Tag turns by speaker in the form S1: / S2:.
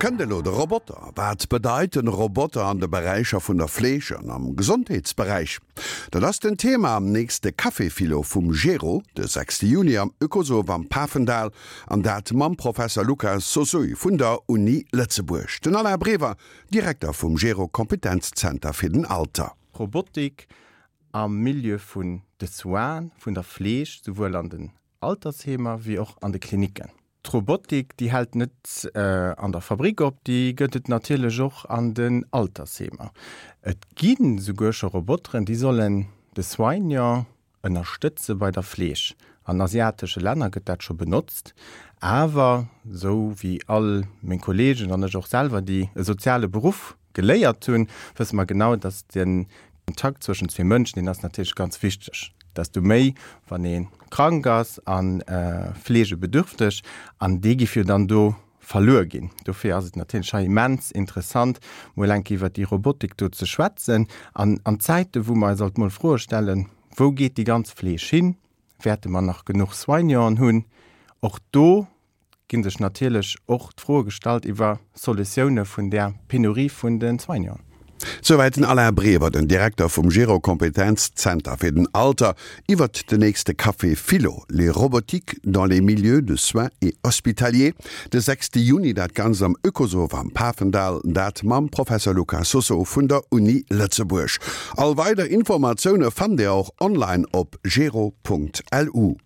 S1: Kënnt elo de Roboter? Wat bedeit den Roboter an de Beräicher vun der Fleeg an am Gesondheetsberäich? Dat ass den Thema am nächste Café-Philo vum Gero, de 6 Juni am Oekosoph am Pafendall, an dat mam Professer Luca Sosuy vun der Uni Lëtzebuerg. Den Alain Brever, Direkter vum Gero Kompetenzzenter fir den Alter.
S2: Robotik am Milieu vun de Soinen, vun der Fleeg, souwuel an den Altersheemer wéi och an de Klinicken. D'Robotik, déi hält net an der Fabrik op, déi gëtt et natierlech och an den Altersheemer. Et gi souguer scho Roboteren, déi sollen de Soignant ënnerstëtze bei der Fleeg. An asiatesche Länner gëtt dat scho benotzt. Awer, esou wéi all meng Kolleegen an ech och selwer, déi e soziale Beruff geléiert hunn, wësse mer genau, dass de Kontakt zwëschen zwee Mënschen, deen ass natierlech ganz wichteg. Desto méi, wann ee krank ass a fleegebedürfteg, an dee giff jo dann do verluer ginn. Dofir ass et natierlech hei immens interessant, mol eng Kéier iwwert déi Robotik do ze schwätzen. An an Zäite wou mer eis alt mol Froe stellen, Wou geet déi ganz Fleeg hin? Wäerte mer nach genuch Soignanten hunn? Och do gi sech natierlech och d'Froe gestallt iwwer Solutioune vun där Penurie vun de Soignanten.
S1: Souwäit den Alain Brever, den Direkter vum Gero Kompetenzzenter fir den Alter, iwwert den nächste Café Philo, Les robotiques dans les milieux de soins et hospitaliers, de 6 Juni, dat Ganzt am Oekosoph am Pafendall, dat mam Professer Luca Soso vun der Uni Lëtzebuerg. All weider Informatioune fannt Dir och online op gero.lu.